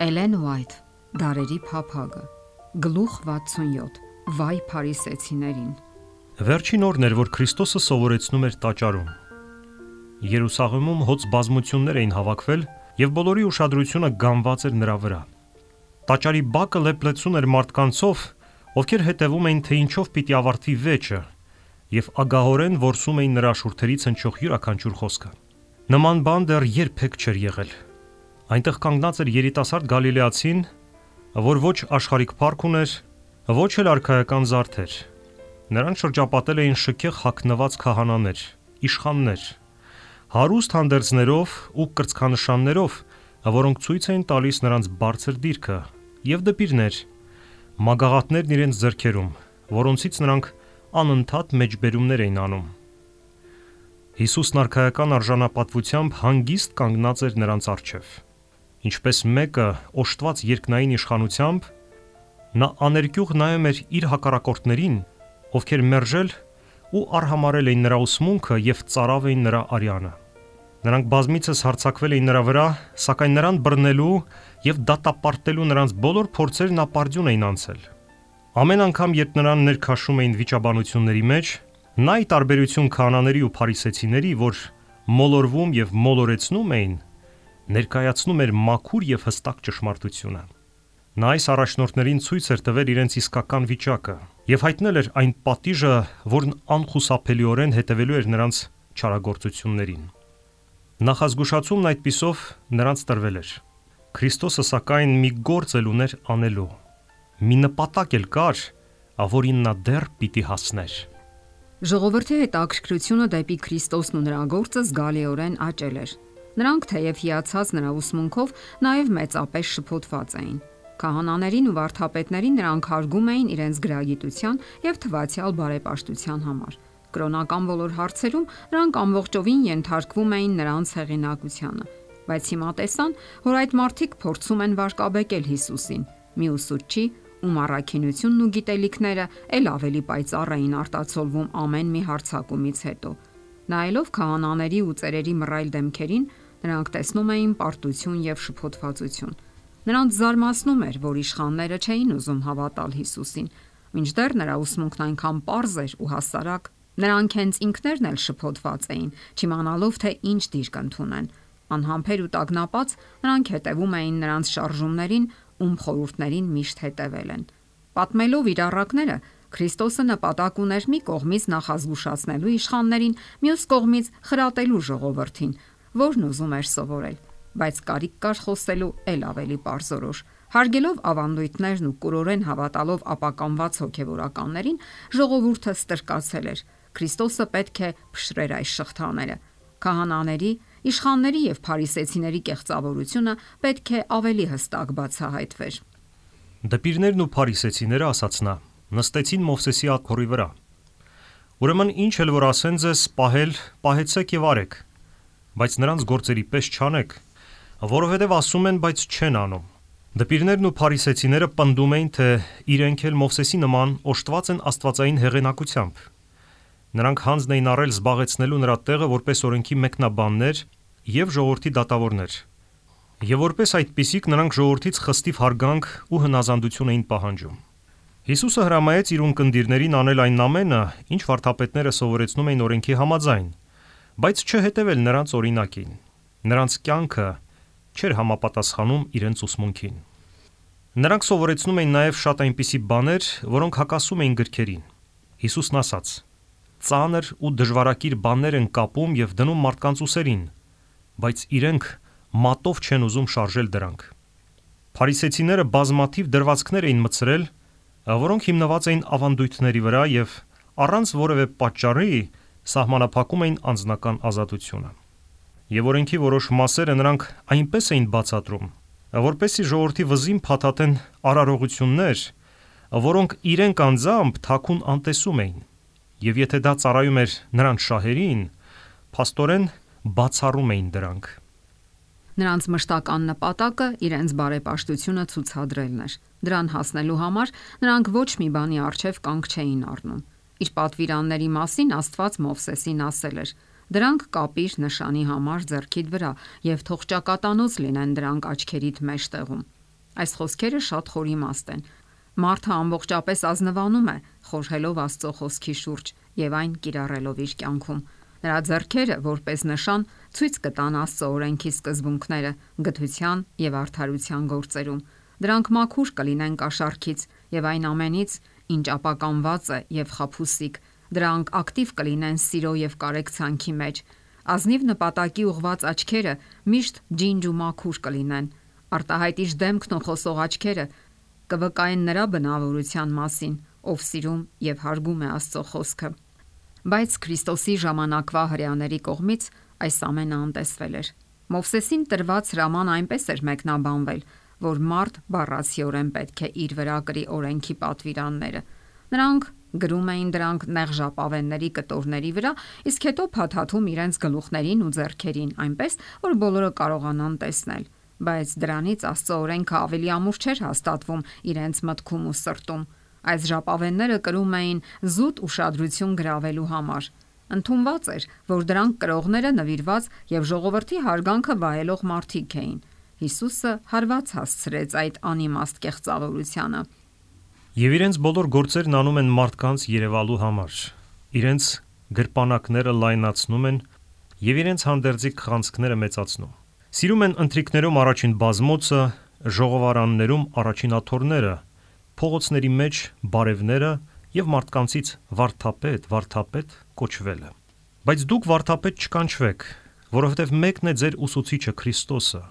Էլեն Ուայթ, Դարերի փափագը, գլուխ 67, վայ փարիսեցիներին։ Վերջին օրն էր, որ Քրիստոսը սովորեցնում էր տաճարում։ Երուսաղեմում հոծ բազմություններ էին հավաքվել եւ բոլորի ուշադրությունը գանված էր նրա վրա։ Տաճարի բակը լեփլեցուն էր մարդկանցով, ովքեր հետևում էին, թե ինչով պիտի ավարտվի վեճը, եւ ագահորեն որսում էին նրա շուրթերից հնչող յուրաքանչյուր խոսքը։ Նման բան դեռ երբեք չէր եղել։ Այնտեղ կանգնած էր երիտասարդ գալիլեացին, որ ոչ աշխարհիկ փառք ուներ, ոչ էլ արքայական զարդեր։ Նրան շրջապատել էին շքեղ հագնված քահանաներ, իշխաններ, հարուստ հանդերձներով ու կրծքանշաններով, որոնք ցույց էին տալիս նրանց բարձր դիրքը, եւ դպիրներ, մագաղատներն իրենց ձեռքերում, որոնցից նրանք անընդհատ մեջբերումներ էին անում։ Հիսուսն արքայական արժանապատվությամբ հանգիստ կանգնած էր նրանց առջև։ Ինչպես մեկը օժտված երկնային իշխանությամբ, նա աներկյուղ նայում էր իր հակառակորդներին, ովքեր մերժել ու արհամարել էին նրա ուսմունքը եւ ծարավ էին նրա արյանը։ Նրանք բազմիցս հարձակվել էին նրա վրա, սակայն նրան բռնելու եւ դատապարտելու նրանց բոլոր փորձերն ապարդյուն էին անցել։ Ամեն անգամ, երբ նրան ներքաշում էին վիճաբանությունների մեջ, նա ի տարբերություն քահանաների ու փարիսեցիների, որ մոլորվում եւ մոլորեցնում էին, ներկայացնում էր մաքուր եւ հստակ ճշմարտությունը։ Նա այս առաջնորդներին ցույց էր տվել իրենց իսկական վիճակը եւ հայտնել էր այն պատիժը, որն անխուսափելիորեն հետևելու էր նրանց չարագործություններին։ Նախազգուշացումն այդպիսով նրանց տրվել էր։ Քրիստոսը սակայն մի գործ էլ ուներ անելու։ Մի նպատակ էլ կար, որին նա դեռ պիտի հասներ։ Ժողովրդի հետաքրքրությունը դեպի Քրիստոսն ու նրա գործը զգալիորեն աճել էր։ Նրանք թեև հիացած նրա ուսմունքով, նաև մեծապես շփոթված էին։ Քահանաներին ու վարդապետներին նրանք հարգում էին իրենց գրագիտության եւ թվացial բարեպաշտության համար։ Կրոնական բոլոր հարցերում նրանք ամբողջովին ենթարկվում էին նրանց հեղինակությանը, բայց հիմա տեսան, որ այդ մարդիկ փորձում են վարկաբեկել Հիսուսին։ Մի ուսուցչի, ում առաքինությունն ու գիտելիքները ել ավելի պայծառ էին արտացոլվում ամեն մի հարձակումից հետո։ Նայելով քահանաների ու ծերերի մռայլ դեմքերին, նրանք տեսնում էին պարտություն եւ շփոթվածություն։ Նրանց զարմացնում էր, որ իշխանները չէին ուզում հավատալ Հիսուսին, մինչդեռ նրա ուսմունքն այնքան պարզ էր ու հասարակ։ Նրանք հենց ինքներն էլ շփոթված էին, չիմանալով թե ինչ դիրք ընդունեն։ Անհամբեր ու տագնապած նրանք հետևում էին նրանց շարժումներին, ում խորհուրդներին միշտ հետևել են։ Պատմելով իր առակները, Քրիստոսը նպատակ ուներ մի կողմից նախազգուշացնելու իշխաններին, մյուս կողմից խրատելու ժողովրդին, որն ուզում էր սովորել, բայց կարիք կար խոսելու ել ավելի պարզորոշ։ Հարգելով ավանդույթներն ու կուրորեն հավատալով ապականված հոգևորականներին, ժողովուրդը ստրկացել էր։ Քրիստոսը պետք է փշրեր այս շղթաները։ Քահանաների, իշխանների եւ փարիսեցիների կեղծավորությունը պետք է ավելի հստակ բացահայտվեր։ Դպիրներն ու փարիսեցիները, ասաց նա, նստեցին Մովսեսի աթոռի վրա։ Ուրեմն ինչ էլ որ ասեն ձեզ պահել, պահեցեք եւ արեք, բայց նրանց գործերի պես չանեք, որովհետեւ ասում են, բայց չեն անում։ Դպիրներն ու փարիսեցիները պնդում էին, թե իրենք էլ Մովսեսի նման օժտված են աստվածային հեղինակությամբ։ Նրանք հանձն էին առել զբաղեցնելու նրա տեղը որպես օրենքի մեկնաբաններ եւ ժողովրդի դատավորներ։ Եվ որպես այդպիսիք նրանք ժողովրդից խստիվ հարգանք ու հնազանդություն էին պահանջում։ Հիսուսը հրամայեց իր ունկնդիրներին անել այն ամենը, ինչ վարդապետները սովորեցնում էին օրենքի համաձայն, բայց չհետևել նրանց օրինակին։ Նրանց կյանքը չէր համապատասխանում իրենց ուսմունքին։ Նրանք սովորեցնում էին նաև շատ այնպիսի բաներ, որոնք հակասում էին գրքերին։ Հիսուսն ասաց. «Ծանր ու դժվարակիր բաներ են կապում եւ դնում մարդկանց ուսերին, բայց իրենք մատով չեն ուզում շարժել դրանք»։ Փարիսեցիները բազմաթիվ դրվածքներ էին մտցրել, որոնք հիմնված էին ավանդույթների վրա եւ առանց որևէ պատճառի սահմանափակում էին անձնական ազատությունը։ Եվ օրենքի որոշ մասերը նրանք այնպես էին բացատրում, որպեսզի ժողովրդի վզին փաթաթեն արարողություններ, որոնք իրենք անձամբ թաքուն անտեսում էին։ Եվ եթե դա ծառայում էր նրանց շահերին, փաստորեն բացառում էին դրանք։ Նրանց մշտական նպատակը իրենց բարեպաշտությունը ցուցադրելն էր։ Դրան հասնելու համար նրանք ոչ մի բանի առջև կանգ չէին առնում։ Իր պատվիրանների մասին Աստված Մովսեսին ասել էր. Դրանք կապիր նշանի համար ձեռքիդ վրա եւ թող ճակատանոց լինեն դրանք աչքերիդ մեջտեղում։ Այս խոսքերը շատ խորիմաստ են։ Մարդը ամբողջապես ազնվանում է, խորհելով Աստծո խոսքի շուրջ եւ այն կիրառելով իր կյանքում։ Նրա ձեռքերը, որպես նշան, ցույց կտան Աստծո օրենքի սկզբունքները գթության եւ արդարության գործերում։ Դրանք մաքուր կլինեն կաշառքից եւ այն ամենից, ինչ ապականված է եւ խաբուսիկ։ Դրանք ակտիվ կլինեն սիրո եւ կարեկցանքի մեջ։ Ազնիվ նպատակի ուղված աչքերը միշտ ջինջ ու մաքուր կլինեն։ Արտահայտիչ դեմքն ու խոսող աչքերը կվկայեն նրա բնավորության մասին, ով սիրում եւ հարգում է Աստծո խոսքը։ Բայց Քրիստոսի ժամանակվա հրեաների կողմից այս ամենը անտեսվել էր։ Մովսեսին տրված հրաման այնպես էր մեկնաբանվել, որ մարդ բառացիորեն պետք է իր վրա կրի օրենքի պատվիրանները։ Նրանք գրում էին դրանք նեղ ժապավենների կտորների վրա, իսկ հետո փաթաթում իրենց գլուխներին ու ձեռքերին, այնպես որ բոլորը կարողանան տեսնել։ Բայց դրանից Աստծո օրենքը ավելի ամուր չէր հաստատվում իրենց մտքում ու սրտում։ Այս ժապավենները կրում էին զուտ ուշադրություն գրավելու համար։ Ընդունված էր, որ դրանք կրողները նվիրված եւ ժողովրդի հարգանքը վայելող մարդիկ էին։ Հիսուսը հարված հասցրեց այդ անիմաստ կեղծավորությանը։ Եվ իրենց բոլոր գործերն անում են մարդկանց երևալու համար։ Իրենց գրպանակները լայնացնում են եւ իրենց հանդերձիկ խանձքները մեծացնում։ Սիրում են ընթրիքներում առաջին բազմոցը, ժողովարաններում առաջին աթոռները, փողոցների մեջ բարևները եւ մարդկանցից վարդապետ կոչվելը։ Բայց դուք վարդապետ չկանչվեք, որովհետեւ մեկն է ձեր ուսուցիչը Քրիստոսը,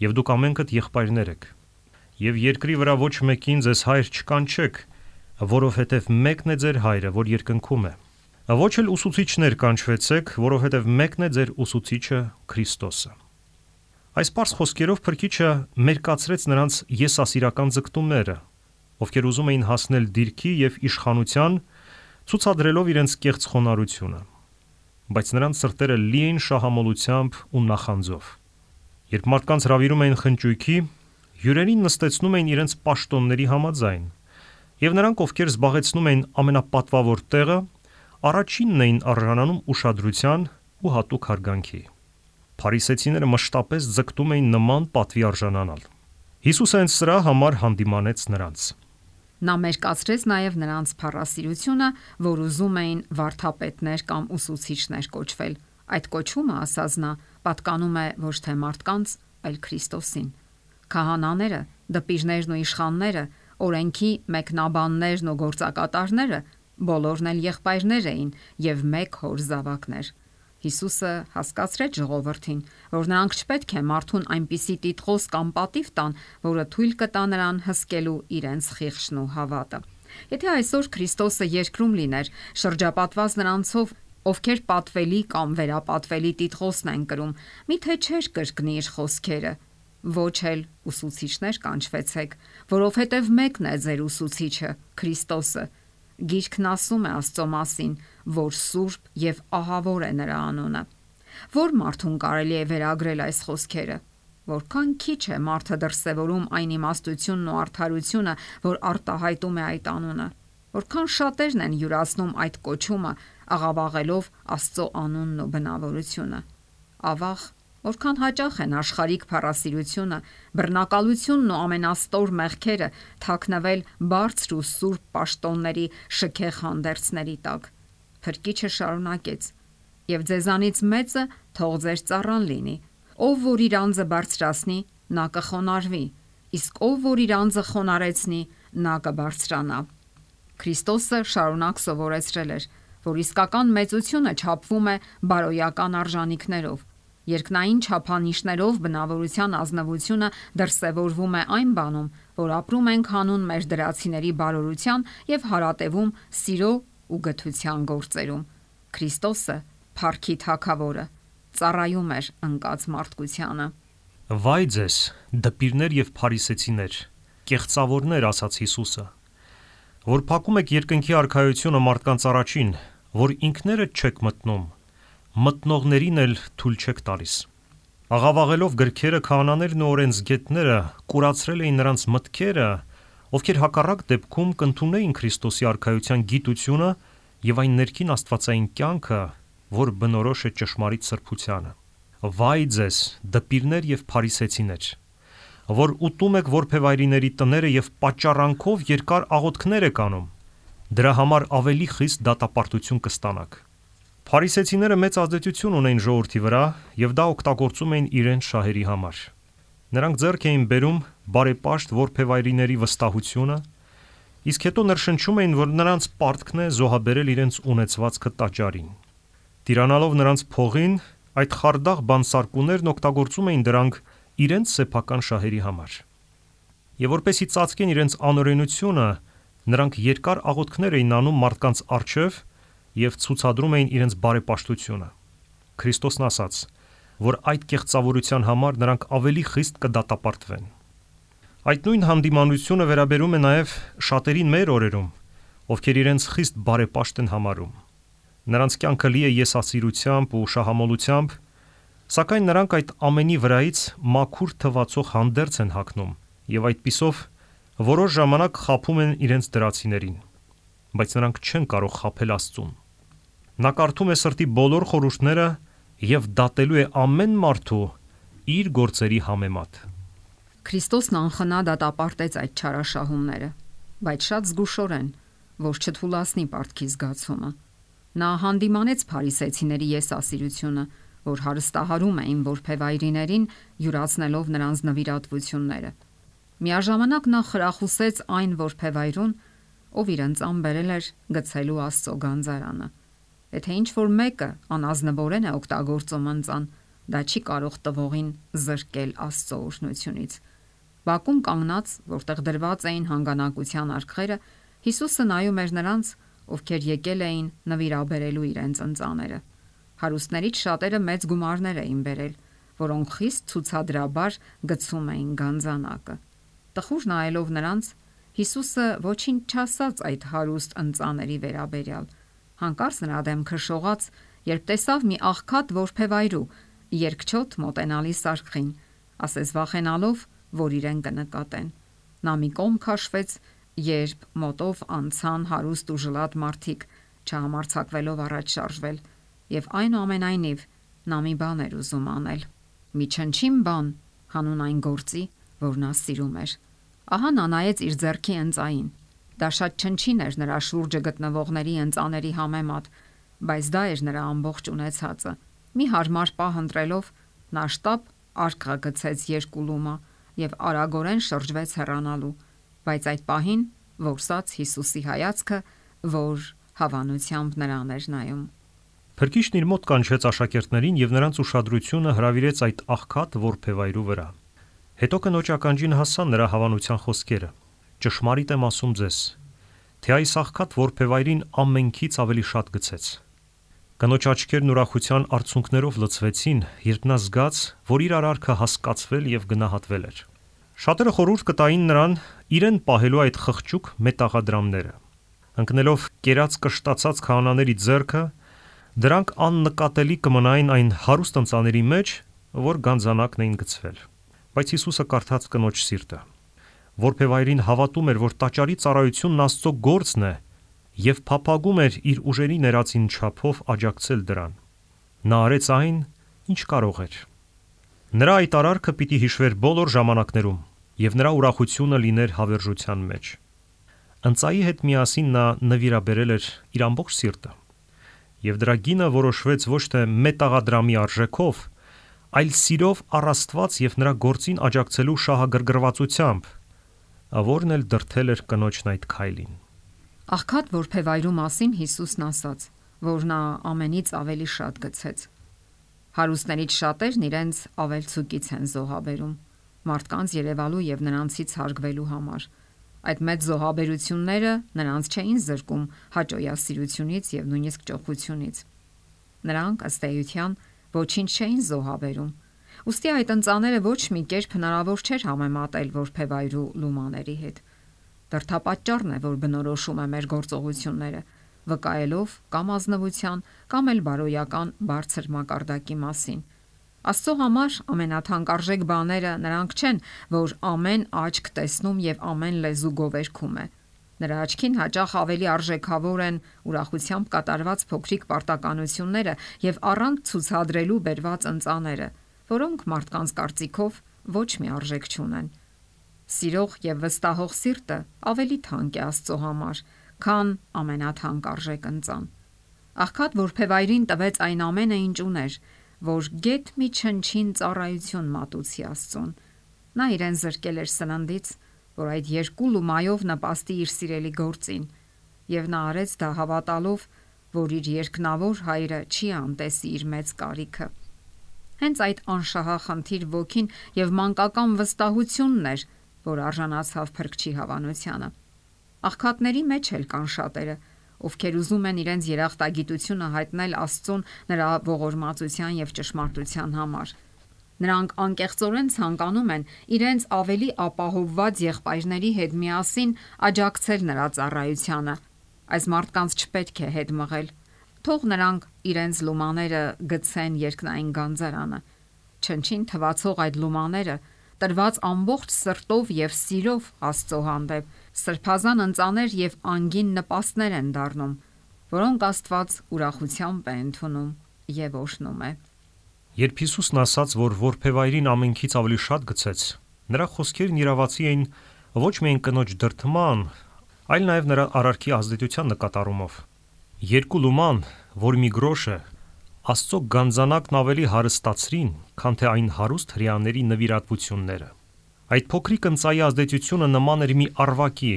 եւ դուք ամենքդ եղբայրներ եք։ Եվ երկրի վրա ոչ մեկին ձեզ հայր չկանչեք, որովհետև մեկն է ձեր հայրը, որ երկնքում է։ Ոչ էլ ուսուցիչներ կանչվեցեք, որովհետև մեկն է ձեր ուսուցիչը Քրիստոսը։ Այս պարզ խոսքերով Փրկիչը մերկացրեց նրանց եսասիրական ձգտումները, ովքեր ուզում էին հասնել դիրքի եւ իշխանության, ցուցադրելով իրենց կեղծ խոնարհությունը։ Բայց նրանց սրտերը լի էին շահամոլությամբ ու նախանձով։ Երբ մարդկանց հրավիրում էին խնճույքի, հյուրերին նստեցնում էին իրենց պաշտոնների համաձայն, եւ նրանք, ովքեր զբաղեցնում էին ամենապատվավոր տեղը, առաջինն էին արժանանում ուշադրության ու հատուկ հարգանքի։ Փարիսեցիները մշտապես ձգտում էին նման պատվի արժանանալ։ Հիսուսը հենց սրա համար հանդիմանեց նրանց։ Նա մերկացրեց նաև նրանց փառասիրությունը, որ ուզում էին վարդապետներ կամ ուսուցիչներ կոչվել։ Այդ կոչումը, ասաց նա, պատկանում է ոչ թե մարդկանց, այլ Քրիստոսին։ Քահանաները, դպիրներն ու իշխանները, օրենքի մեկնաբաններն ու գործակատարները բոլորն էլ եղբայրներ էին եւ մեկ հոր զավակներ։ Հիսուսը հասկացրեց ժողովրդին, որ նրանք չպետք է մարդուն այնպիսի տիտղոս կամ պատիվ տան, որը թույլ կտա նրան հսկելու իրենց խիղճն ու հավատը։ Եթե այսօր Քրիստոսը երկրում լիներ, շրջապատված նրանցով, ովքեր պատվելի կամ վերապատվելի տիտղոսն են կրում, միթե չէր կրկնի իր խոսքերը. ոչ էլ ուսուցիչներ կանչվեցեք, որովհետև մեկն է ձեր ուսուցիչը, Քրիստոսը։ Գիրքն ասում է Աստծո մասին, որ սուրբ եւ ահավոր է նրա անունը։ Որ մարդուն կարելի է վերագրել այս խոսքերը, որքան քիչ է մարդը դրսևորում այն իմաստությունն ու արդարությունը, որ արտահայտում է այդ անունը, որքան շատերն են յուրացնում այդ կոչումը, աղավաղելով Աստծո անունն ու բնավորությունը։ Ավաղ, որքան հաճախ են աշխարհիկ փառասիրությունը, բռնակալությունն ու ամենաստոր մեղքերը թաքնվել բարձր ու սուրբ պաշտոնների շքեղ հանդերձների տակ։ Փրկիչը շարունակեց. «Եվ ձեզանից մեծը թող ձեր ծառան լինի, ով որ իր անձը բարձրացնի, նա կխոնարհվի, իսկ ով որ իր անձը խոնարեցնի, նա կբարձրանա»։ Քրիստոսը շարունակ սովորեցրել էր, որ իսկական մեծությունը չափվում է բարոյական արժանինքներով։ Երկնային չափանիշներով բնավորության ազնվությունը դրսևորվում է այն բանում, որ ապրում ենք հանուն մեր դրացիների բարօրության եւ հարատևում սիրո ու գթության գործերում։ Քրիստոսը, փառքի Թագավորը, ծառայում էր ընկած մարդկությանը։ Վայ ձեզ, դպիրներ եւ փարիսեցիներ, կեղծավորներ, ասաց Հիսուսը, որ փակում եք երկնքի արքայությունը մարդկանց առաջին, որ ինքներդ չեք մտնում, մտնողներին էլ թույլ չեք տալիս։ Աղավաղելով գրքերը, քահանաներն ու օրենսգետները կուրացրել էին նրանց մտքերը, ովքեր հակառակ դեպքում կընդունեին Քրիստոսի արքայության գիտությունը եւ այն ներքին աստվածային կյանքը, որ բնորոշ է ճշմարիտ սրբությանը։ Վայ ձեզ, դպիրներ եւ փարիսեցիներ, որ ուտում եք որբևայրիների տները եւ պատճառանքով երկար աղոթքներ եք անում, դրա համար ավելի խիստ դատապարտություն կստանաք։ Փարիսեցիները մեծ ազդեցություն ունեին ժողովրդի վրա եւ դա օգտագործում էին իրենց շահերի համար։ Նրանք ձեռք էին բերում բարեպաշտ որբևայրիների վստահությունը, իսկ հետո ներշնչում էին, որ նրանց պարտքն է զոհաբերել իրենց ունեցվածքը տաճարին։ Տիրանալով նրանց փողին, այդ խարդախ բանսարկուներն օգտագործում էին դրանք իրենց սեփական շահերի համար։ Եվ որպեսզի ծածկեն իրենց անօրենությունը, նրանք երկար աղոթքներ էին անում մարդկանց առջև եւ ցուցադրում էին իրենց բարեպաշտությունը։ Քրիստոսն ասաց, որ այդ կեղծավորության համար նրանք ավելի խիստ կդատապարտվեն։ Այդ նույն հանդիմանությունը վերաբերում է նաև շատերին մեր օրերում, ովքեր իրենց խիստ բարեպաշտ են համարում։ Նրանց կյանքը լի է եսասիրությամբ ու շահամոլությամբ, սակայն նրանք այդ ամենի վրայից մաքուր թվացող հանդերձ են հագնում եւ այդպիսով որոշ ժամանակ խաբում են իրենց դրացիներին, բայց նրանք չեն կարող խաբել Աստծուն։ Նա կարդում է սրտի բոլոր խորհուրդները եւ դատելու է ամեն մարդու իր գործերի համեմատ։ Քրիստոսն անխնա դատապարտեց այդ չարաշահումները, բայց շատ զգուշորեն, որ չթուլացնի պարտքի զգացումը։ Նա հանդիմանեց փարիսեցիների եսասիրությունը, որ հարստահարում էին որբևայրիներին, յուրացնելով նրանց նվիրատվությունները։ Միաժամանակ նա խրախուսեց այն որբևայրուն, ով իրենց անբերել էր գցելու Աստծո գանձարանը։ Եթե ինչ-որ մեկը անազնվորեն է օգտագործում ընծան, դա չի կարող տվողին զրկել Աստծո օրհնությունից։ Բակում կանգնած, որտեղ դրված էին հանգանակության արկղերը, Հիսուսը նայում էր նրանց, ովքեր եկել էին նվիրաբերելու իրենց ընծաները։ Հարուստներից շատերը մեծ գումարներ էին բերել, որոնք խիստ ցուցադրաբար գցում էին գանձանակը։ Տխուր նայելով նրանց, Հիսուսը ոչինչ չասաց այդ հարուստ ընծաների վերաբերյալ։ Հանկարծ նրա դեմքը շողաց, երբ տեսավ մի աղքատ որբևայրու երկչոտ մոտենալիս արքին, ասես վախենալով, որ իրեն կնկատեն։ Նա մի կողմ քաշվեց, երբ մոտով անցան հարուստ ու ժլատ մարդիկ, չհամարձակվելով առաջ շարժվել, եւ այնուամենայնիվ նա մի բան էր ուզում անել։ Մի չնչին բան հանուն այն գործի, որ նա սիրում էր։ Ահա նա նայեց իր ձեռքի ընծային։ Դա շատ չնչին էր նրա շուրջը գտնվողների ընծաների համեմատ, բայց դա էր նրա ամբողջ ունեցածը։ Մի հարմար պահ ընտրելով, նա շտապ արկղը գցեց երկու լումա եւ արագորեն շրջվեց հեռանալու, բայց այդ պահին որսաց Հիսուսի հայացքը, որ հավանությամբ նրան էր նայում։ Փրկիչն իր մոտ կանչեց աշակերտներին եւ նրանց ուշադրությունը հրավիրեց այդ աղքատ որբևայրու վրա։ Հետո կնոջ ականջին հասան նրա հավանության խոսքերը. «Ճշմարիտ եմ ասում ձեզ, թե այս աղքատ որբևայրին ամենքից ավելի շատ գցեց»։ Կնոջ աչքերն ուրախության արցունքներով լցվեցին, երբ նա զգաց, որ իր արարքը հասկացվել եւ գնահատվել էր։ Շատերը խորհուրդ կտային նրան իրեն պահելու այդ խղճուկ մետաղադրամները։ Ընկնելով կերած կշտացած քահանաների ձեռքը, դրանք աննկատելի կմնային այն հարուստ ընծաների մեջ, որ գանձանակն էին գցվել։ Բայց Հիսուսը կարդաց կնոջ սիրտը։ Որբևայրին հավատում էր, որ տաճարի ծառայությունն Աստծո գործն է եւ փափագում էր իր ուժերի ներածին չափով աջակցել դրան։ Նա արեց այն, ինչ կարող էր։ Նրա այդ արարքը պիտի հիշվեր բոլոր ժամանակներում եւ նրա ուրախությունը լիներ հավերժության մեջ։ Ընծայի հետ միասին նա նվիրաբերել էր իր ամբողջ սիրտը։ Եվ դրա գինը որոշվեց ոչ թե մետաղադրամի արժեքով, այլ սիրով առ Աստված եւ նրա գործին աջակցելու շահագրգռվածությամբ, որն էլ դրդել էր կնոջն այդ քայլին։ Աղքատ որբևայրու մասին Հիսուսն ասաց, որ նա ամենից ավելի շատ գցեց։ Հարուստներից շատերն իրենց ավելցուկից են զոհաբերում, մարդկանց երևալու եւ նրանցից հարգվելու համար։ Այդ մեծ զոհաբերությունները նրանց չէին զրկում հաճոյասիրությունից եւ նույնիսկ ճոխությունից։ Նրանք ըստ էության ոչինչ չէին զոհաբերում։ Ուստի այդ ընծաները ոչ մի կերպ հնարավոր չէր համեմատել որբևայրու լումաների հետ։ Դրդապատճառն է, որ բնորոշում է մեր գործողությունները, վկայելով կամ ազնվության, կամ էլ բարոյական բարձր մակարդակի մասին։ Աստծո համար ամենաթանկարժեք բաները նրանք չեն, որ ամեն աչք տեսնում եւ ամեն լեզու գովերգում է։ Նրա աչքին հաճախ ավելի արժեքավոր են ուրախությամբ կատարված փոքրիկ պարտականությունները եւ առանց ցուցադրելու բերված ընծաները, որոնք մարդկանց կարծիքով ոչ մի արժեք չունեն։ Սիրող եւ վստահող սիրտը ավելի թանկ է Աստծո համար, քան ամենաթանկ արժեք ընծան։ Աղքատ որբևայրին տվեց այն ամենը, ինչ ուներ, որ գեթ մի չնչին ծառայություն մատուցի Աստծուն։ Նա իրեն զրկել էր սննդից, որ այդ երկու լումայով նպաստի իր սիրելի գործին, եւ նա արեց դա հավատալով, որ իր երկնավոր հայրը չի անտեսի իր մեծ կարիքը։ Հենց այդ անշահախնդիր ոգին եւ մանկական վստահությունն էր, որ արժանացավ Փրկչի հավանությանը։ Աղքատների մեջ էլ կան շատերը, ովքեր ուզում են իրենց երախտագիտությունը հայտնել Աստծուն նրա ողորմածության եւ ճշմարտության համար։ Նրանք անկեղծորեն ցանկանում են իրենց ավելի ապահովված եղբայրների հետ միասին աջակցել նրա ծառայությանը։ Այս մարդկանց չպետք է հետ մղել։ Թող նրանք իրենց լումաները գցեն երկնային գանձարանը։ Չնչին թվացող այդ լումաները տրված ամբողջ սրտով եւ սիրով Աստծո հանդեպ սրբազան ընծաներ եւ անգին նպաստներ են դառնում, որոնք Աստված ուրախությամբ է ընդունում եւ օժնում է։ Երբ Հիսուսն ասաց, որ որբևայրին ամենքից ավելի շատ գցեց, նրա խոսքերն իրավացի էին ոչ միայն կնոջ դրդման, այլ նաև նրա արարքի ազդեցության նկատառումով։ Երկու լուման, որ մի գրոշ է, Աստծո գանձանակն ավելի հարստացրին, քան թե այն հարուստ հրեաների նվիրատվությունները։ Այդ փոքրիկ ընծայի ազդեցությունը նման էր մի առվակի,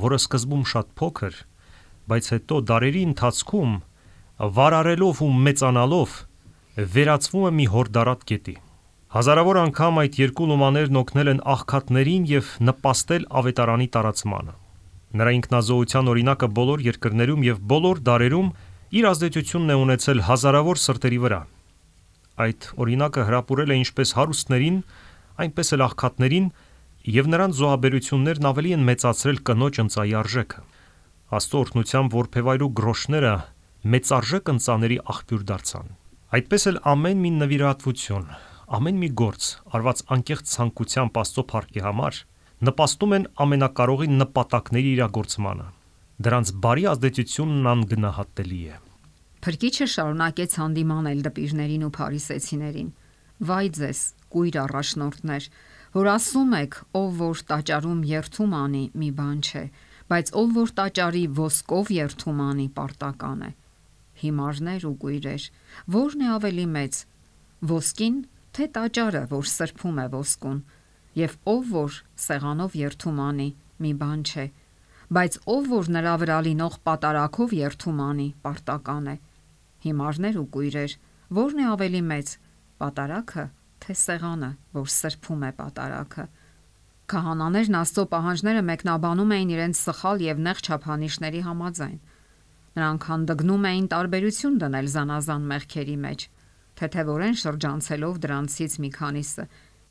որը սկզբում շատ փոքր, բայց հետո դարերի ընթացքում վարարելով ու մեծանալով վերածվում է մի հորդարատ գետի։ Հազարավոր անգամ այդ երկու լումաներն օգնել են աղքատներին եւ նպաստել ավետարանի տարածմանը։ Նրա ինքնազոհության օրինակը բոլոր երկրներում եւ բոլոր դարերում իր ազդեցությունն է ունեցել հազարավոր սրտերի վրա։ Այդ օրինակը հրապուրել է ինչպես հարուստներին, այնպես էլ աղքատներին, եւ նրանց զոհաբերություններն ավելի են մեծացրել կնոջ ընծայի արժեքը։ Աստծո օրհնությամբ որբևայրու գրոշները մեծարժեք ընծաների աղբյուր դարձան։ Այդպես էլ ամեն մի նվիրատվություն, ամեն մի գործ, արված անկեղծ ցանկությամբ Աստծո փառքի համար, նպաստում են ամենակարողի նպատակների իրագործմանը։ Դրանց բարի ազդեցությունն անգնահատելի է։ Փրկիչը շարունակեց հանդիմանել դպիրներին ու փարիսեցիներին. «Վայ ձեզ, կույր առաջնորդներ, որ ասում եք, ով որ տաճարում երթում անի, մի բան չէ, բայց ով որ տաճարի ոսկով երթում անի, պարտական է։ Հիմարներ ու կույրեր, ո՞րն է ավելի մեծ, ոսկին, թե տաճարը, որ սրբում է ոսկուն, եւ ով որ սեղանով երթում անի, մի բան չէ, բայց ով որ նրա վրա լինող պատարակով երթում անի, պարտական է։ Հիմարներ ու կույրեր, ո՞րն է ավելի մեծ, պատարակը, թե սեղանը, որ սրբում է պատարակը»։ Քահանաներն Աստծո պահանջները մեկնաբանում էին իրենց սխալ եւ նեղ չափանիշների համաձայն։ Նրանք հանդգնում էին տարբերություն դնել զանազան մեղքերի մեջ, թեթևորեն շրջանցելով դրանցից մի քանիսը,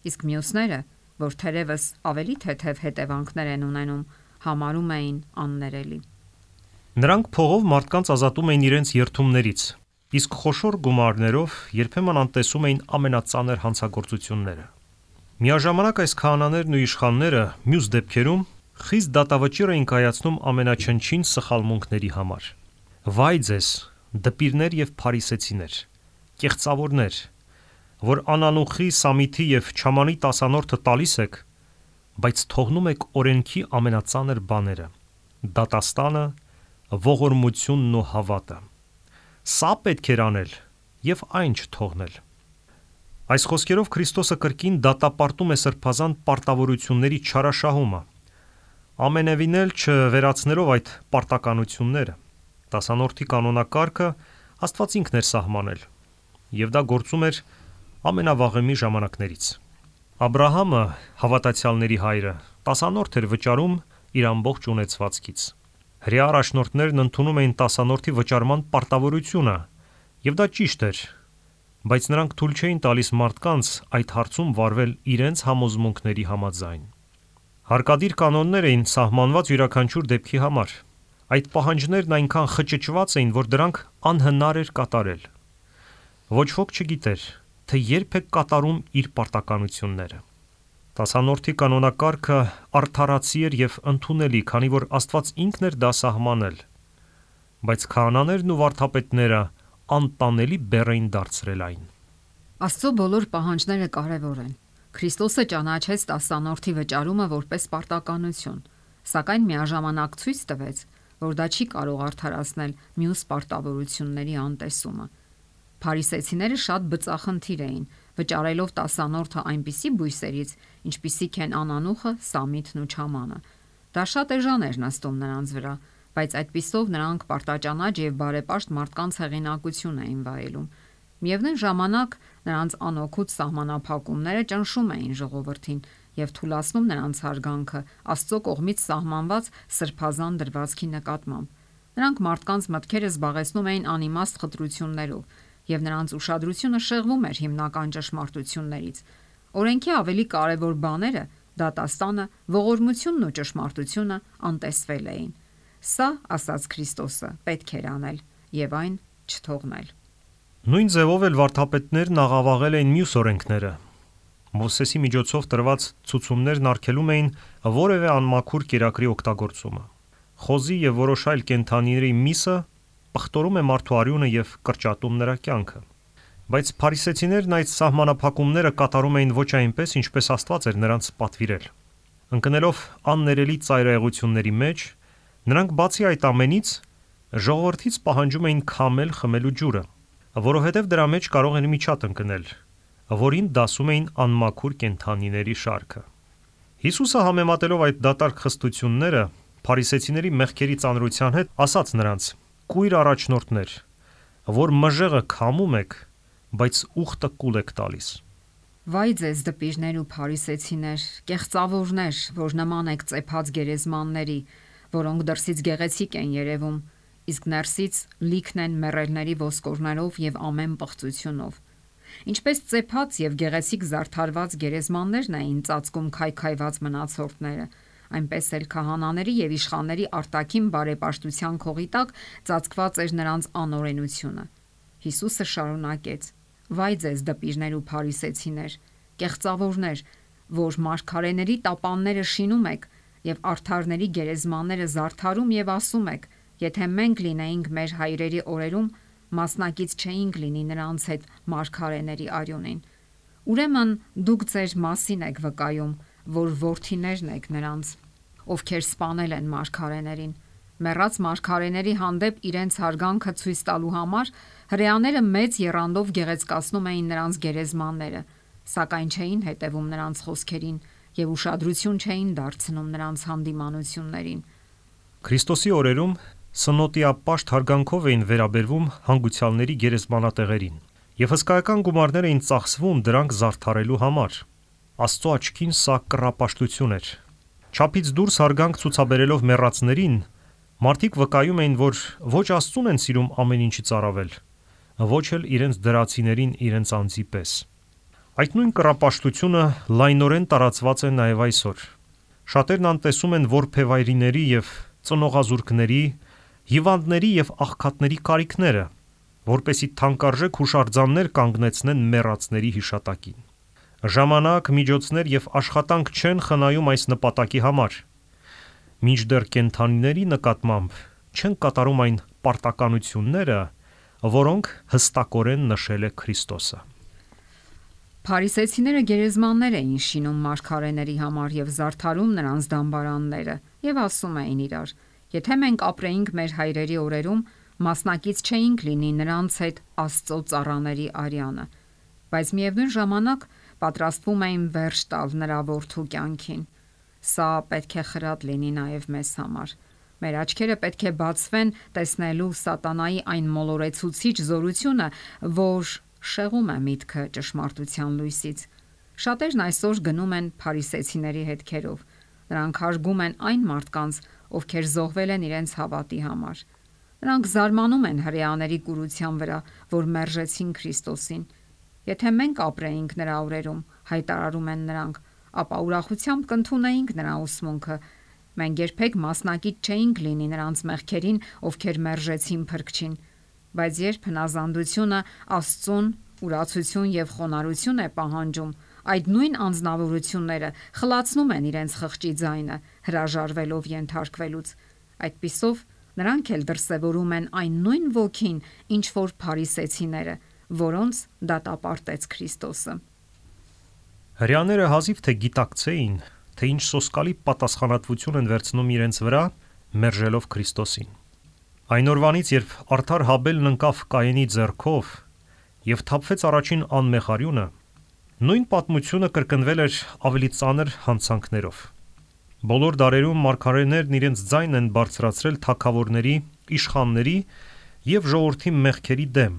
իսկ մյուսները, որ թերևս ավելի թեթև հետևանքներ են ունենում, համարում էին աններելի։ Նրանք փողով մարդկանց ազատում էին իրենց երթումներից, իսկ խոշոր գումարներով երբեմն անտեսում էին ամենածանր հանցագործությունները։ Միաժամանակ այս քահանաներն ու իշխանները մյուս դեպքերում խիստ դատավճիռ էին կայացնում ամենաչնչին սխալմունքների համար։ Վայ ձեզ, դպիրներ եւ փարիսեցիներ, կեղծավորներ, որ անանուխի, սամիթի եւ չամանի տասանորդը տալիս եք, բայց թողնում եք օրենքի ամենածանր բաները՝ դատաստանը, ողորմությունն ու հավատը։ Սա պետք էր անել եւ այն չթողնել։ Այս խոսքերով Քրիստոսը կրկին դատապարտում է սրբազան պարտավորությունների չարաշահումը, ամենևին էլ չվերացնելով այդ պարտականությունները։ Տասանորդի կանոնակարգը Աստված ինքն էր սահմանել, եւ դա գործում էր ամենավաղեմի ժամանակներից։ Աբրահամը, հավատացյալների հայրը, տասանորդ էր վճարում իր ամբողջ ունեցվածքից։ Հրեա առաջնորդներն ընդունում էին տասանորդի վճարման պարտավորությունը, եւ դա ճիշտ էր, բայց նրանք թույլ չէին տալիս մարդկանց այդ հարցում վարվել իրենց համոզմունքների համաձայն։ Հարկադիր կանոններ էին սահմանված յուրաքանչյուր դեպքի համար։ Այդ պահանջներն այնքան խճճված էին, որ դրանք անհնար էր կատարել։ Ոչ ոք չգիտեր, թե երբ է կատարում իր պարտականությունները։ Տասանորդի կանոնակարգը արդարացի էր եւ ընդունելի, քանի որ Աստված ինքն էր դա սահմանել, բայց քահանաներն ու վարդապետները անտանելի բեռ էին դարձրել այն։ Աստծո բոլոր պահանջները կարևոր են։ Քրիստոսը ճանաչեց տասանորդի վճարումը որպես պարտականություն, սակայն միաժամանակ ցույց տվեց, որ դա չի կարող արդարացնել մյուս պարտավորությունների անտեսումը։ Փարիսեցիները շատ բծախնդիր էին, վճարելով տասանորդը այնպիսի բույսերից, ինչպիսիք են անանուխը, սամիթն ու չամանը։ Դա շատ էժան էր նստում նրանց վրա, բայց այդպիսով նրանք պարտաճանաչ եւ բարեպաշտ մարդկանց հեղինակություն էին վայելում։ Միևնույն ժամանակ նրանց անօգուտ սահմանափակումները ճնշում էին ժողովրդին եւ թուլացնում նրանց հարգանքը Աստծո կողմից սահմանված սրբազան դրվածքի նկատմամբ։ Նրանք մարդկանց մտքերը զբաղեցնում էին անիմաստ խտրություններով եւ նրանց ուշադրությունը շեղվում էր հիմնական ճշմարտություններից։ Օրենքի ավելի կարևոր բաները՝ դատաստանը, ողորմությունն ու ճշմարտությունը անտեսվել էին։ Սա, ասաց Քրիստոսը, պետք էր անել եւ այն չթողնել։ Նույն ձևով էլ վարդապետներն աղավաղել էին մյուս օրենքները։ Մովսեսի միջոցով տրված ցուցումներն արգելում էին որևէ անմաքուր կերակրի օգտագործումը։ Խոզի եւ որոշ այլ կենդանիների միսը պղտորում է մարդու արյունը եւ կրճատում նրա կյանքը։ Բայց փարիսեցիներն այդ սահմանափակումները կատարում էին ոչ այնպես, ինչպես Աստված էր նրանց պատվիրել։ Ընկնելով աններելի ծայրահեղությունների մեջ, նրանք բացի այդ ամենից ժողովրդից պահանջում էին քամել խմելու ջուրը, որովհետև դրա մեջ կարող էր միջատ ընկնել, որին դասում էին անմաքուր կենդանիների շարքը։ Հիսուսը համեմատելով այդ դատարկ խստությունները փարիսեցիների մեղքերի ծանրության հետ, ասաց նրանց. «Կույր առաջնորդներ, որ մժեղը քամում եք, բայց ուխտը կուլ եք տալիս»։ Վայ ձեզ դպիրներ ու փարիսեցիներ, կեղծավորներ, որ նման եք ծեփած գերեզմանների, որոնք դրսից գեղեցիկ են երևում, իսկ ներսից լիքն են մեռելների ոսկորներով եւ ամեն պղծությունով։ Ինչպես ծեփած եւ գեղեցիկ զարդարված գերեզմաններն էին ծածկում քայքայված մնացորդները, այնպես էլ քահանաների եւ իշխանների արտաքին բարեպաշտության քողի տակ ծածկված էր նրանց անօրենությունը։ Հիսուսը շարունակեց. «Վայ ձեզ դպիրներ ու փարիսեցիներ, կեղծավորներ, որ մարգարեների տապանները շինում եք եւ արդարների գերեզմանները զարդարում եւ ասում եք. եթե մենք լինեինք մեր հայրերի օրերում, մասնակից չէինք լինի նրանց հետ մարգարեների արյունին։ Ուրեմն դուք ձեր մասին եք վկայում, որ որդիներն եք նրանց, ովքեր սպանել են մարգարեներին։ Մեռած մարգարեների հանդեպ իրենց հարգանքը ցույց տալու համար հրեաները մեծ եռանդով գեղեցկացնում էին նրանց գերեզմանները, սակայն չէին հետևում նրանց խոսքերին եւ ուշադրություն չէին դարձնում նրանց հանդիմանություններին։ Քրիստոսի օրերում սնոտիապաշտ հարգանքով էին վերաբերվում հանգուցյալների գերեզմանատեղերին եւ հսկայական գումարներ էին ծախսվում դրանք զարդարելու համար։ Աստծո աչքին սա կռապաշտություն էր։ Չափից դուրս հարգանք ցուցաբերելով մեռածներին, մարդիկ վկայում էին, որ ոչ Աստծուն են սիրում ամեն ինչից առավել, ոչ էլ իրենց դրացիներին իրենց անձի պես։ Այդ նույն կռապաշտությունը լայնորեն տարածված է նաև այսօր։ Շատերն անտեսում են որբևայրիների եւ ծնողազուրկների, հիվանդների եւ աղքատների կարիքները, որպեսի թանկարժեք հուշարձաններ կանգնեցնեն մեռածների հիշատակին։ Ժամանակ, միջոցներ եւ աշխատանք չեն խնայում այս նպատակի համար։ Մինչդեռ կենդանիների նկատմամբ չեն կատարում այն պարտականությունները, որոնք հստակորեն նշել է Քրիստոսը։ Փարիսեցիները գերեզմաններ էին շինում մարգարեների համար եւ զարդարում նրանց դամբարանները եւ ասում էին իրար. եթե մենք ապրեինք մեր հայրերի օրերում, մասնակից չէինք լինի նրանց հետ Աստծո ծառաների արյանը, բայց միևնույն ժամանակ պատրաստվում էին վերջ տալ նրա որդու կյանքին։ Սա պետք է խրատ լինի նաև մեզ համար։ Մեր աչքերը պետք է բացվեն տեսնելու սատանայի այն մոլորեցուցիչ զորությունը, որ շեղում է միտքը ճշմարտության լույսից։ Շատերն այսօր գնում են փարիսեցիների հետքերով։ Նրանք հարգում են այն մարդկանց, ովքեր զոհվել են իրենց հավատի համար։ Նրանք զարմանում են հրեաների կուրության վրա, որ մերժեցին Քրիստոսին։ Եթե մենք ապրեինք նրա օրերում, հայտարարում են նրանք, ապա ուրախությամբ կընդունեինք նրա ուսմունքը։ Մենք երբեք մասնակից չէինք լինի նրանց մեղքերին, ովքեր մերժեցին Փրկչին։ Բայց երբ հնազանդությունը Աստծուն ուրացություն եւ խոնարհություն է պահանջում, այդ նույն անձնավորությունները խլացնում են իրենց խղճի ձայնը, հրաժարվելով ենթարկվելուց։ Այդպիսով նրանք էլ դրսևորում են այն նույն ոգին, ինչ որ փարիսեցիները, որոնց դատապարտեց Քրիստոսը։ Հրեաները հազիվ թե գիտակցեին, թե ինչ սոսկալի պատասխանատվություն են վերցնում իրենց վրա, մերժելով Քրիստոսին։ Այն օրվանից, երբ արդար Հաբելն ընկավ Կայենի ձեռքով եւ թափվեց առաջին անմեղ արյունը, նույն պատմությունը կրկնվել էր ավելի ծանր հանցանքներով։ Բոլոր դարերում մարգարեներն իրենց ձայնն են բարձրացրել թագավորների, իշխանների եւ ժողովրդի մեղքերի դեմ,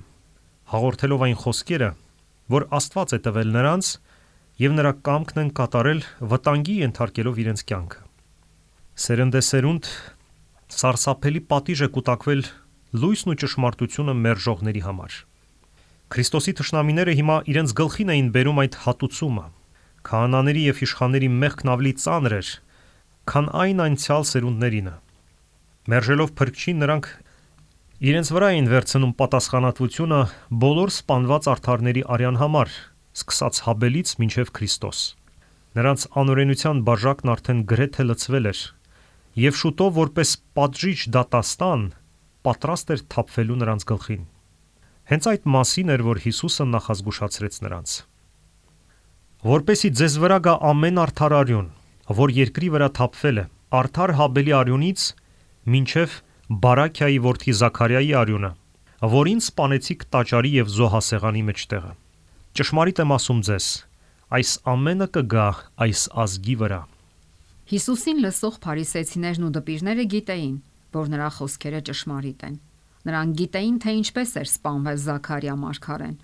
հաղորդելով այն խոսքերը, որ Աստված է տվել նրանց եւ նրա կամքն են կատարել վտանգի ենթարկելով իրենց կյանքը։ Սերնդեսերունդ սարսափելի պատիժ է կուտակվել լույսն ու ճշմարտությունը մերժողների համար։ Քրիստոսի թշնամիները հիմա իրենց գլխին էին բերում այդ հատուցումը։ Քահանաների եւ իշխանների մեղքն ավելի ծանր էր, քան այն անցյալ սերունդներինը։ Մերժելով փրկչին, նրանք իրենց վրա էին վերցնում պատասխանատվությունը բոլոր սպանված արդարների արյան համար, սկսած Հաբելից մինչև Քրիստոս։ Նրանց անօրենության բաժակն արդեն գրեթե լցվել էր, եւ շուտով որպես պատժիչ դատաստան պատրաստ էր թափվելու նրանց գլխին։ Հենց այդ մասին էր, որ Հիսուսը նախազգուշացրեց նրանց։ Որպեսի ձեզ վրա գա ամեն արդար արյուն, որ երկրի վրա թափվել է, արդար Հաբելի արյունից մինչև Բարաքիայի որդի Զաքարիայի արյունը, որին սպանեցիք տաճարի եւ զոհասեղանի մեջտեղը։ Ճշմարիտ եմ ասում ձեզ, այս ամենը կգա այս ազգի վրա։ Հիսուսին լսող փարիսեցիներն ու դպիրները գիտեին, որ նրա խոսքերը ճշմարիտ են։ Նրանք գիտեին, թե ինչպես էր սպանվել Զաքարիա մարգարեն։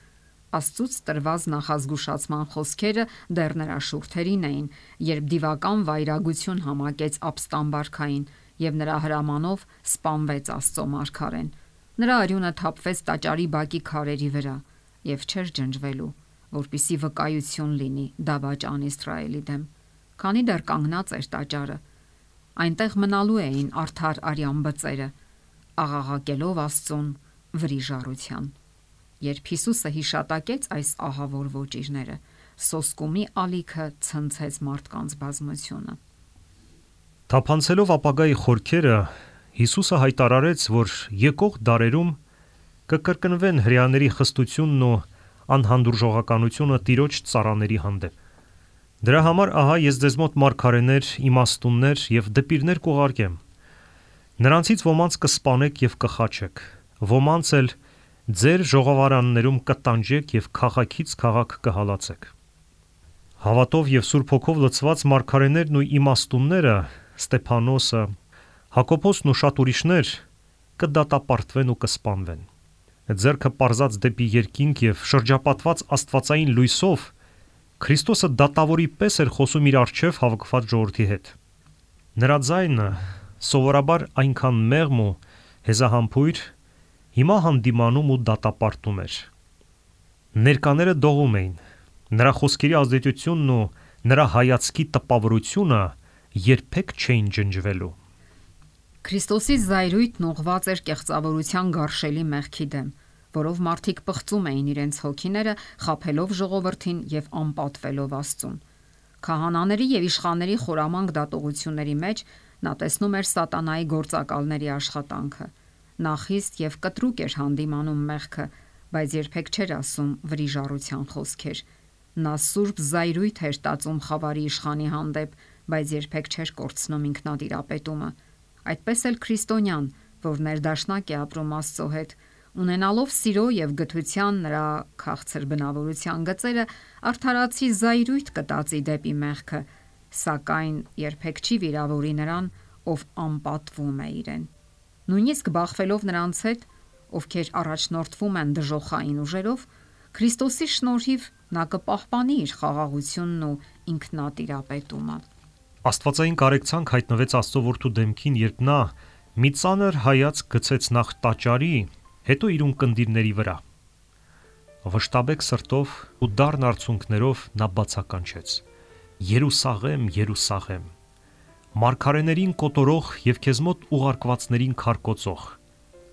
Աստծուց տրված նախազգուշացման խոսքերը դեռ նրա շուրթերին էին, երբ դիվական վայրագություն համակեց ապստամբարքային եւ նրա հրամանով սպանվեց Աստծո մարգարեն։ Նրա արյունը թափվեց տաճարի բակի քարերի վրա եւ չէր ջնջվելու, որպիսի վկայություն լինի դավաճան Իսրայելի դեմ, քանի դեռ կանգնած էր տաճարը։ Այնտեղ մնալու էին արդար արյան բծերը, աղաղակելով Աստծուն վրիժառության։ Երբ Հիսուսը հիշատակեց այս ահավոր ոճիրները, սոսկումի ալիքը ցնցեց մարդկանց բազմությունը։ Թափանցելով ապագայի խորքերը, Հիսուսը հայտարարեց, որ եկող դարերում կկրկնվեն հրեաների խստությունն ու անհանդուրժողականությունը Տիրոջ ծառաների հանդեպ։ Դրա համար ահա ես ձեզ մոտ մարգարեներ, իմաստուններ եւ դպիրներ կուղարկեմ։ Նրանցից ոմանց կսպանեք եւ կխաչեք, ոմանց էլ ձեր ժողովարաններում կտանջեք եւ քաղաքից քաղաք կհալածեք։ Հավատով եւ Սուրբ Հոգով լցված մարգարեներն ու իմաստունները, Ստեփանոսը, Հակոբոսն ու շատ ուրիշներ կդատապարտվեն ու կսպանվեն։ Ձեռքը պարզած դեպի երկինք եւ շրջապատված աստվածային լույսով Քրիստոսը դատավորի պես էր խոսում իր առջև հավաքված ժողովրդի հետ։ Նրա ձայնը սովորաբար այնքան մեղմ ու հեզահամբույր, հիմա հանդիմանում ու դատապարտում էր։ Ներկաները դողում էին։ Նրա խոսքերի ազդեցությունն ու նրա հայացքի տպավորությունը երբեք չէին ջնջվելու։ Քրիստոսի զայրույթն ուղղված էր կեղծավորության գարշելի մեղքի դեմ, որով մարդիկ պղծում էին իրենց հոգիները, խաբելով ժողովրդին եւ անպատվելով Աստծուն։ Քահանաների եւ իշխանների խորամանկ դատողությունների մեջ նա տեսնում էր սատանայի գործակալների աշխատանքը։ Նա խիստ եւ կտրուկ էր հանդիմանում մեղքը, բայց երբեք չէր ասում վրիժառության խոսքեր։ Նա սուրբ զայրույթ էր տածում խավարի իշխանի հանդեպ, բայց երբեք չէր կորցնում ինքնատիրապետումը։ Այդպես էլ քրիստոնյան, որ ներդաշնակ է ապրում Աստծո հետ, ունենալով սիրո եւ գթության նրա քաղցր բնավորության գծերը, արդարացի զայրույթ կտածի դեպի մեղքը, սակայն երբեք չի վիրավորի նրան, ով անպատվում է իրեն։ Նույնիսկ բախվելով նրանց հետ, ովքեր առաջնորդվում են դժոխային ուժերով, Քրիստոսի շնորհիվ նա կպահպանի իր խաղաղությունն ու ինքնատիրապետումը։ Աստվածային կարեկցանք հայտնվեց Աստծո որդու դեմքին, երբ նա մի ծանր հայացք գցեց նախ տաճարի, հետո իր ունկնդիրների վրա։ Վշտաբեկ սրտով ու դառն արցունքներով նա բացականչեց. Երուսաղեմ, Երուսաղեմ, մարգարեներին կոտորող եւ քեզ մոտ ուղարկվածներին քարկոծող,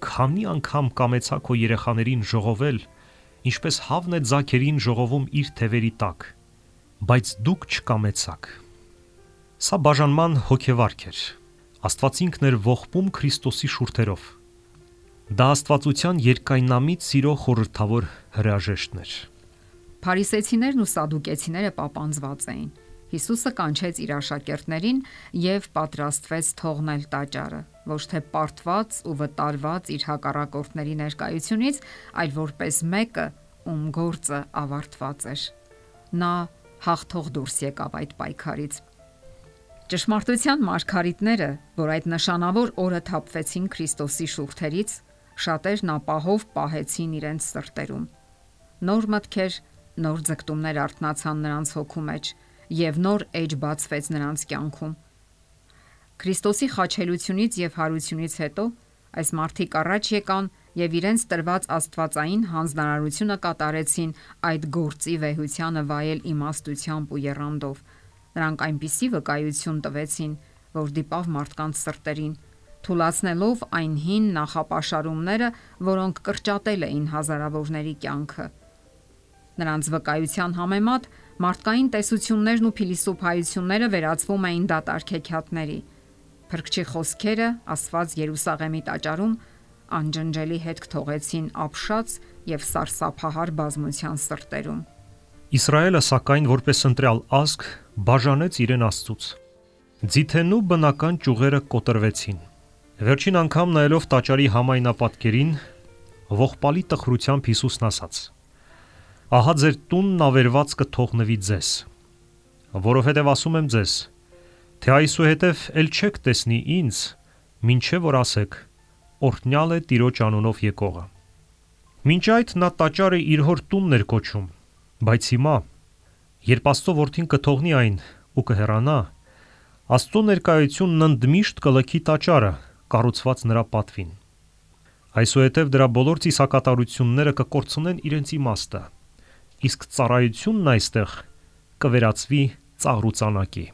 քանի անգամ կամեցա քո երեխաներին ժողովել, ինչպես հավն է ձագերին ժողովում իր թևերի տակ, բայց դուք չկամեցաք։ Սա բաժանման հոգեվարք էր։ Աստված ինքն էր ողբում Քրիստոսի շուրթերով։ Դա աստվածության երկայնամիտ սիրո խորհրդավոր հրաժեշտն էր։ Փարիսեցիներն ու սադուկեցիները պապանձված էին։ Հիսուսը կանչեց իր աշակերտներին եւ պատրաստվեց թողնել տաճարը, ոչ թե պարտված ու վտարված իր հակառակորդների ներկայությունից, այլ որպես մեկը, ում գործը ավարտված էր։ Նա հաղթող դուրս եկավ այդ պայքարից։ Ճշմարտության մարգարիտները, որ այդ նշանավոր օրը թափվեցին Քրիստոսի շուրթերից, շատերն ապահով պահեցին իրենց սրտերում։ Նոր մտքեր, նոր ձգտումներ արթնացան նրանց հոգու մեջ եւ նոր էջ բացվեց նրանց կյանքում։ Քրիստոսի խաչելությունից եւ հարությունից հետո այս մարդիկ առաջ եկան եւ իրենց տրված աստվածային հանձնարարությունը կատարեցին այդ գործի վեհությանը վայել իմաստությամբ ու եռանդով։ Նրանք այնպիսի վկայություն տվեցին, որ դիպավ մարդկանց սրտերին, թուլացնելով այն հին նախապաշարումները, որոնք կրճատել էին հազարավորների կյանքը։ Նրանց վկայության համեմատ մարդկային տեսություններն ու փիլիսոփայությունները վերածվում էին դատարկ հեքիաթների։ Փրկչի խոսքերը, ասված Երուսաղեմի տաճարում, անջնջելի հետք թողեցին ապշած եւ սարսափահար բազմության սրտերում։ Իսրայելը սակայն որպես ընտրյալ ազգ բաժանեց իրեն Աստծուց։ Ձիթենու բնական ճյուղերը կոտրվեցին։ Վերջին անգամ նայելով տաճարի համայնապատկերին, ողբալի տխրությամբ Հիսուսն ասաց. «Ահա ձեր տունն ավերված կթողնվի ձեզ, որովհետև ասում եմ ձեզ, թե այսուհետև ել չեք տեսնի ինձ, մինչև որ ասեք, օրհնյալ է Տիրոջ անունով եկողը»։ Մինչ այդ նա տաճարը իր հոր տունն էր կոչում, բայց հիմա, երբ Աստծո որդին կթողնի այն ու կհեռանա, Աստծո ներկայությունն ընդմիշտ կլքի տաճարը, կառուցված նրա պատվին։ Այսուհետև դրա բոլոր ծիսակատարությունները կկորցնեն իրենց իմաստը, իսկ ծառայությունն այստեղ կվերածվի ծաղրուծանակի։